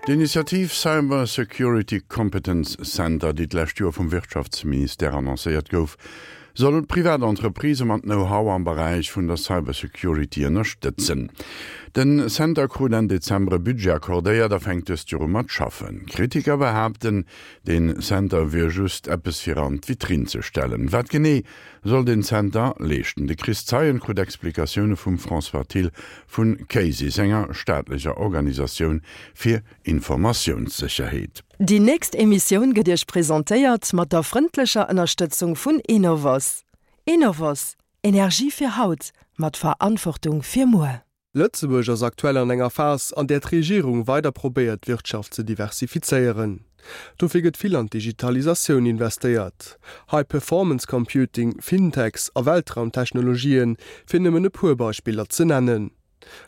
D'Initiativ Cyber Security Competence Center, déi d'lescht Joer vum Wirtschaftsministère annoncéiert gouf, soll privat Entreprisë mat Know-how am Beräich vun der Cybersecurity ënnerstëtzen. Den Center krut Enn Dezember e Budget accordéiert a fänkt dëst Joer u mat schaffen. Kritiker behaapten, den Center wier just eppes fir an d'Vitrinn ze stellen. Wat genee soll den Center leeschten? De Chris Zeien krut Explikatioune vum François Thill vu CASIS, enger staatlecher Organisatioun fir Informatiounssécherheet. Déi nächst Emissioun gëtt Iech presentéiert mat der frëndlecher Ënnerstëtzung vun Enovos. Enovos, Energie fir haut, mat Verantwortung fir muer. Lëtzebuerg ass aktuell an enger Phas, an där d'Regierung weider probéiert d'Wirtschaft ze diversifizéieren. Dofir gëtt vill an d'Digitalisatioun investéiert. High Performance Computing, Fintechs a Weltraumtechnologien, fir nëmmen e puer Beispiller ze nennen.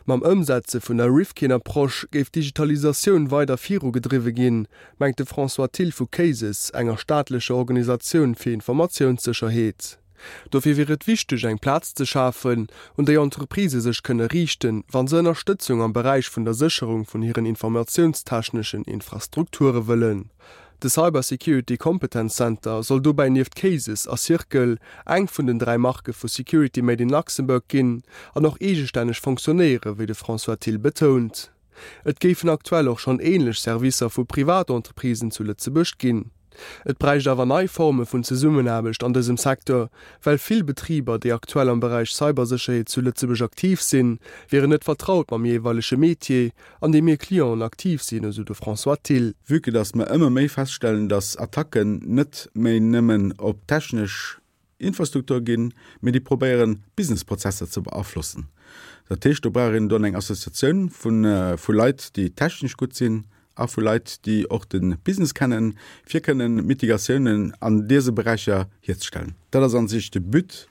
Mam Ëmsetze vun der Rifkin-Approche géif d'Digitalisatioun weider virugedriwwe ginn, mengt de François Thill vu CASES, enger staatlecher Organisatioun fir Informatiounssécherheet. Dofir wier et wichteg, eng Plaz ze schafen, un déi Entreprisë sech kënne riichten, wa se Ënnerstëtzung am Beräich vun der Sécherung vun hiren informatiounstechneschen Infrastrukture wëllen. De Cyber Security Competence Center soll dobäi nieft Cases a Circle eng vun den 3 Marke vu Security Made in Luxembourg ginn an och eegestänneg fonctionnéiere wéi de François Thill betount. Et géifen aktuell och schonn änlech Servicer vu Privatentreprisen zu Lëtzebuerg ginn. Et bräicht awer nei Forme vun Zesummenaarbecht an dësem Secteur, well vill Betriber, déi aktuell am Beräich Cybersécherheet zu Lëtzebuerg aktiv sinn, wieren net vertraut mam jeeweilege Metier, an deem hir Clienten aktiv sinn, esou de François Thill. Vue que dass mer ëmmer méi feststellen, dass Attacken net méi nëmmen op technesch Infrastruktur ginn, mee déi probéieren Businessprozesser ze beaflossen. Dat heescht, do brauch een dann eng Associatioun vu Leit, déi technesch gutt sinn a vu Leit, déi och de Business kennen, fir kënnen Mitigatiounen an dëse Beräicher hierzestellen. Dat ass a sech de But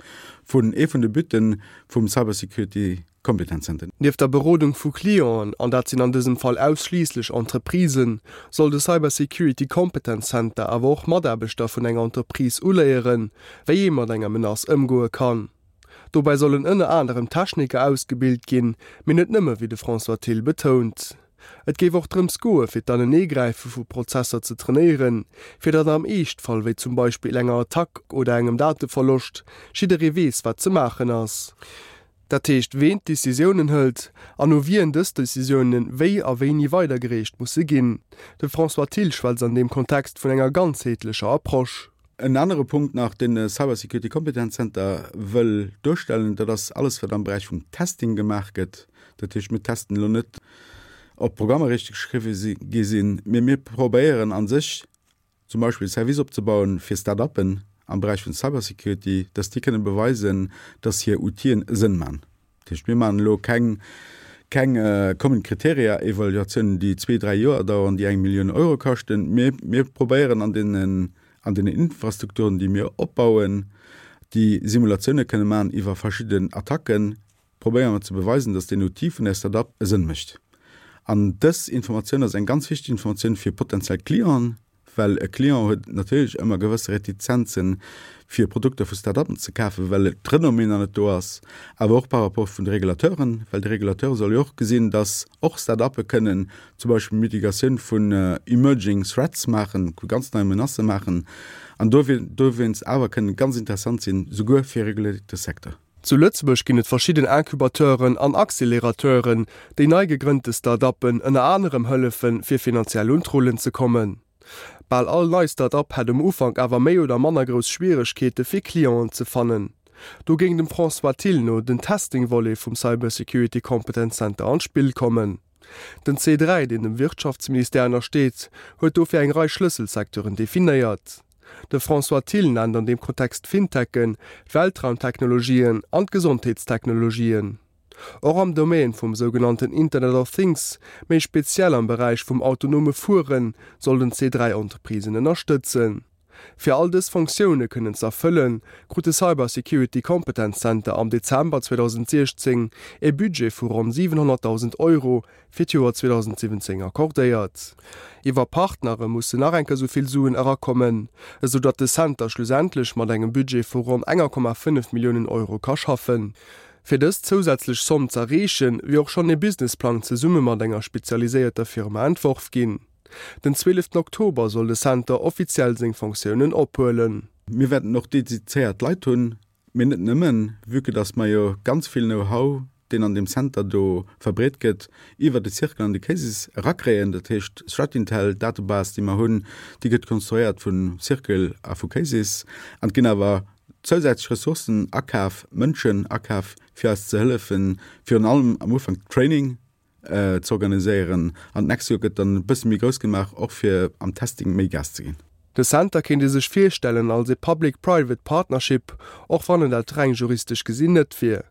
vun, ee vun de Butte vum Cybersecurity Kompetenzzentren. Nieft der Berodung vu Clienten, an dat sinn an dësem Fall ausschliisslech Entreprisen, soll de Cyber Security Competence Center awer och Mataarbechter vun enger Entreprise uléieren, wéi ee mat enger Menace ëmgoe kann. Dobäi sollen ënner anerem Techniker ausgebilt ginn, mee net nëmme, wéi de François Thill betount. Et géif och drëms goe fir d'Aneneegräife vu Prozesser ze trainéieren, fir datt am Eeschtfall, wéi zum Beispill enger Attack oder engem Dateverloscht, jidderee weess, wat ze maachen ass. Dat heescht, ween d'Decisiounen hëlt an u wien dës Decisiounen wéi a wéini weidergereecht musse ginn. De François Thill schwätzt an deem Kontext vun enger ganzheetlecher Approche. En anere Punkt nach, deen de Cyber Security Competence Center wëll duerstellen, dat ass alles, wat am Beräich vum Testing gemaach gëtt. Dat heescht, mir testen elo net, ob d'Programmer richteg geschriwwe gi sinn, mee mir probéieren a sech, zum Beispill e Service opzebauen fir Start-uppen am Beräich vun Cybersecurity, dass déi kënnen beweisen, dass hir Outile e Sënn man. Dat heescht, mir maachen elo keng, keng Common Criteria Evaluatiounen, déi zwee, dräi Joer daueren, déi eng Millioun Euro kaschten. Mee mir probéieren an deenen, an deenen Infrastrukturen, déi mir opbauen, déi Simulatioune kënne man iwwer verschidden Attacken, probéiere mer ze beweisen, dass deen Outil vun där Start-up e Sënn mécht. An dës Informatioun ass eng ganz wichteg Informatioun fir potenziell Clienten, well e Client huet natierlech ëmmer gewësse Retizenzen, fir Produkter vu Start-uppen ze kafen, well d'Renommée nach net do ass, awer och par rapport vun de Regulateuren, well de Regulateur soll jo och gesinn, dass och Start-uppe kënnen zum Beispill Mitigatioun vun emerging threats maachen, vu ganz neie Menacë maachen an dowéinst awer kënnen ganz interessant sinn, souguer fir e reguléierte Secteur. Zu Lëtzebuerg ginn et verschidden Incubateuren an Accelerateuren, déi nei gegrënnte Start-uppen ënner anerem hëllefen, fir finanziell un d'Rullen ze kommen. Bal all nei Start-up hätt um Ufank awer méi oder manner grouss Schwieregkeete fir Clienten ze fannen. Do géing dem François Thill no den Testing-Volet vum Cyber Security Competence Center an d'Spill kommen. Den C3, deen dem Wirtschaftsministère ënnersteet, huet dofir eng Rei Schlësselsecteuren definéiert. De François Thill nennt an deem Kontext d'Fintechen, d'Weltraumtechnologien an d'Gesondheetstechnologien. Och am Domaine vum sougenannten Internet of Things, méi speziell am Beräich vum autonome Fueren, soll den C3 Entreprisen ënnerstëtzen. Fir all dës Fonctioune kënnen z'erfëllen, krut de Cyber Security Competence Center am Dezember 2016 e Budget vu ronn 700.000 Euro fir d'Joer 2017 accordéiert. Iwwer Partnere mussen nach eng Kéier esou vill Suen erakommen, esou datt de Center schlussendlech mat engem Budget vu ronn 1,5 Milliounen Euro ka schaffen. Fir dës zousätzlech Somm z'erreechen, wier och schonn ee Businessplang zesumme mat enger spezialiséierter Firma entworf ginn. Den 12 Oktober soll de Center offiziell seng Fonctiounen ophuelen. Mir wäerten och dedizéiert Leit hunn, mee net nëmmen, vue que dass mer jo ganz vill Know-how, deen an deem Center do verbreet gëtt, iwwer de Circle an de Cases erakréien. Dat heescht, Threat-Intel, d'Datebase, déi mer hunn, déi gëtt konstruéiert vu Circle a vu Cases. An et ginn awer zousätzlech Ressourcen akaf, Mënschen akaf, fir eis ze hëllefen, virun allem am Ufank Training ze organiséieren. An d'nächst Joer gëtt dann e bësse méi grouss gemaach, och fir am Testing méi Gas ze ginn. De Center kéint ee sech virstellen als ee Public-Private Partnership, och wann en dat reng juristesch gesinn net wier.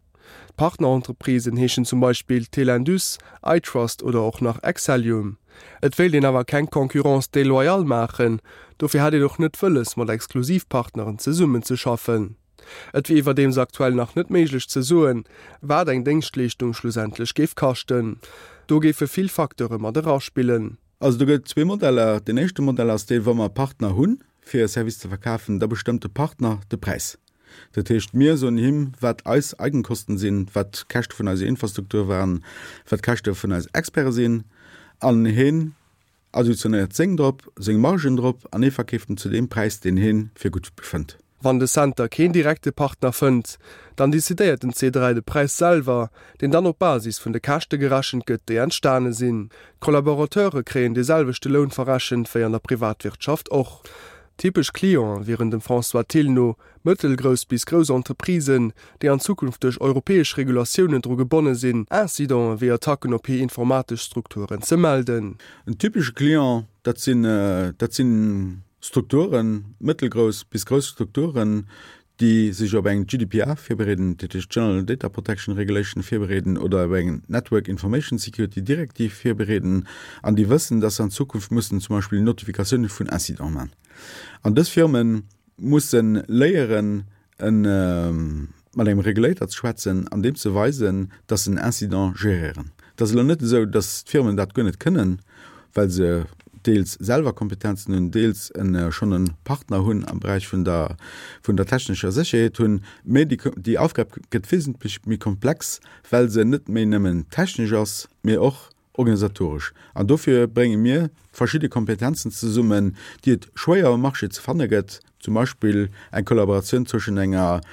D'Partnerentreprisen heeschen zum Beispill Telindus, iTrust oder och nach Excellium. Et wéilt een awer keng Concurrence déloyale maachen, dofir hätt een och net wëlles mat Exklusivpartneren zesummenzeschaffen. Et wier iwwerdeems aktuell nach net méiglech ze soen, wat eng Déngschtleeschtung schlussendlech géif kaschten. Do géife vill Facteure mat eraspillen. Also do gëtt et zwee Modeller. Deen éischte Modell ass dee wa mer Partner hunn, fir e Service ze verkafen, da bestëmmt de Partner de Präis. Dat heescht, mir soen him, wat eis Eigenkosten sinn, wat d'Käschte vun eiser Infrastruktur waren, wat d'Käschte vun eis Experte sinn, an hien additionéiert seng drop, seng Margen drop, an hie verkeeft en zu deem Präis, deen hien fir gutt befënnt. Wann de Center keen direkte Partner fënnt, dann decidéiert den C3 de Präis selwer, deen dann op Basis vun de Käschte gerechent gëtt, déi entstane sinn. D'Collaborateure kréien dee selwechte Loun verrechent wéi an der Privatwirtschaft och. Typesch Clienten wieren dem François Thill no mëttelgrouss bis grouss Entreprisen, déi an Zukunft duerch europäesch Regulatiounen dru gebonne sinn, Incidenten wéi Attacken op hir informatesch Strukturen ze melden. En typesche Client, dat sinn, dat si Strukturen, mëttelgrouss bis grouss Strukturen, déi sech op eng GDPR virbereeden, dat heescht General Data Protection Regulation virbereeden, oder op eng Network Information Security Directive virbereeden an déi wëssen, dass se an Zukunft mussen zum Beispill Notifikatiounen vun Incidenten maachen. An dës Firme musse léieren, mat engem Regulator ze schwätzen an deem ze weisen, dass se en Incident geréieren. Et ass elo net esou, dass d'Firmen dat guer net kënnen, well se deels selwer Kompetenzen hunn, deels schonn e Partner hunn am Beräich vun der, vun der technescher Sécherheet hunn. Mä déi, déi Aufgab gëtt wesentlech méi komplex, well se net méi nëmmen technesch ass, mä och organisatoresch. An dofir brénge mir verschidde Kompetenzen zesummen, déi et schwéier um Marché ze fanne gëtt, zum Beispill eng Kollaboratioun zwëschen enger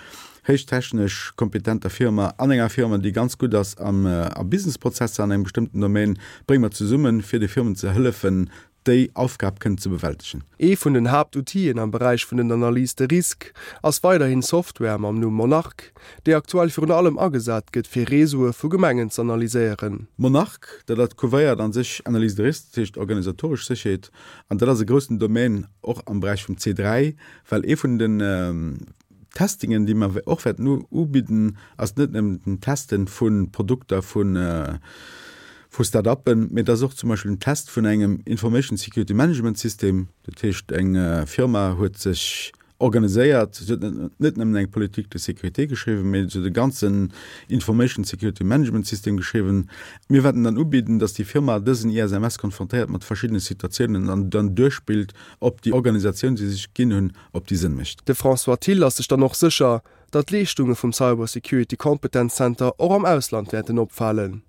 héichtechnesch kompetenter Firma an enger Firma, déi ganz gutt ass am a Businessprozesser an engem bestëmmten Domaine, brénge mer zesummen, fir de Firmen ze hëllefen, déi Aufgab kënnen ze bewältegen. Ee vun den Haaptoutien am Beräich vun den Analyses de risque ass weiderhin Software mam Numm Monarch, déi aktuell virun allem agesat gëtt fir Réseaue vu Gemengen z'analyséieren. Monarch, dat dat couvréiert an sech Analyse de risque, dat heescht organisatoresch Sécherheet, an dat ass e groussen Domaine och am Beräich vum C3, well ee vun den Testingen, déi mer och wäerten ubidden, ass net nëmmen den Testen vu Produkter vu Start-uppen, mee et ass och zum Beispill den Test vun engem Information Security Management System. Dat heescht, eng Firma huet sech organiséiert, se huet net nëmmen eng Politique de sécurité geschriwwen, mee se huet e ganzen Information Security Management System geschriwwen. Mir wäerten dann ubidden, dass déi Firma dësen ISMS konfrontéiert mat verschiddene Situatiounen an dann duerchspillt, ob déi Organisatioun, déi se sech ginn hunn, ob déi Sënn mécht. De François Thill ass sech dann och sécher, datt d'Leeschtunge vum Cyber Security Competence Center och am Ausland wäerten opfalen.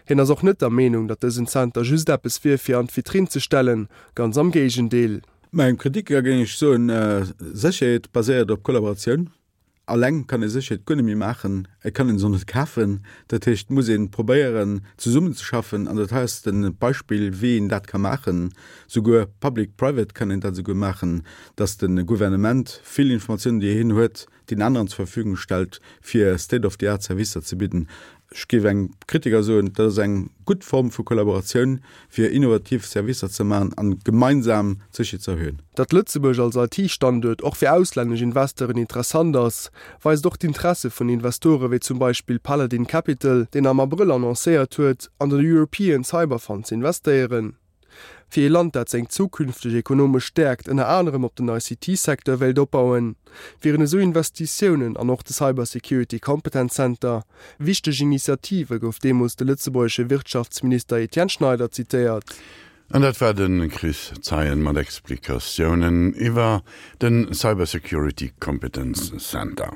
Hien ass och net der Meenung, datt dësen Center just eppes wier fir an d'Vitrinn ze stellen, ganz am Géigendeel. Mengem Kritiker géing ech soen, Sécherheet baséiert op Kollaboratioun. Alleng kann ee Sécherheet guer net méi maachen, et kann een se och net kafen. Dat heescht, et muss ee probéieren zesummenzeschaffen an dat hei ass de Beispill wéi een dat ka maachen. Souguer public private kann een dat esouguer maachen, datt de Gouvernement vill Informatiounen déi hien huet, den aneren zur Verfügung stellt, fir state of the art Servicer ze bidden. Ech géif engem Kritiker soen, dat ass eng gutt Form vu Kollaboratioun, fir innovativ Servicer ze maachen an gemeinsam d'Sécherheet ze erhöhen. Datt Lëtzebuerg als IT-Standuert och fir auslännesch Investeuren interessant ass, weist och d'Interesse vun Investore wéi zum Beispill Paladin Capital, deen am Abrëll annoncéiert huet, an den European Cyber Fund ze investéieren. Fir ee Land, dat seng zukünfteg ekonomesch Stäerkt ënner anerem op den ICT-Secteur wéilt opbauen, wieren esou Investitiounen an och de Cyber Security Competence Center wichteg Initiative, gouf deemools de lëtzebuergesche Wirtschaftsminister Etienne Schneider zitéiert. An dat war de Chris Zeien mat Explikatiounen iwwer de Cyber Security Competence Center.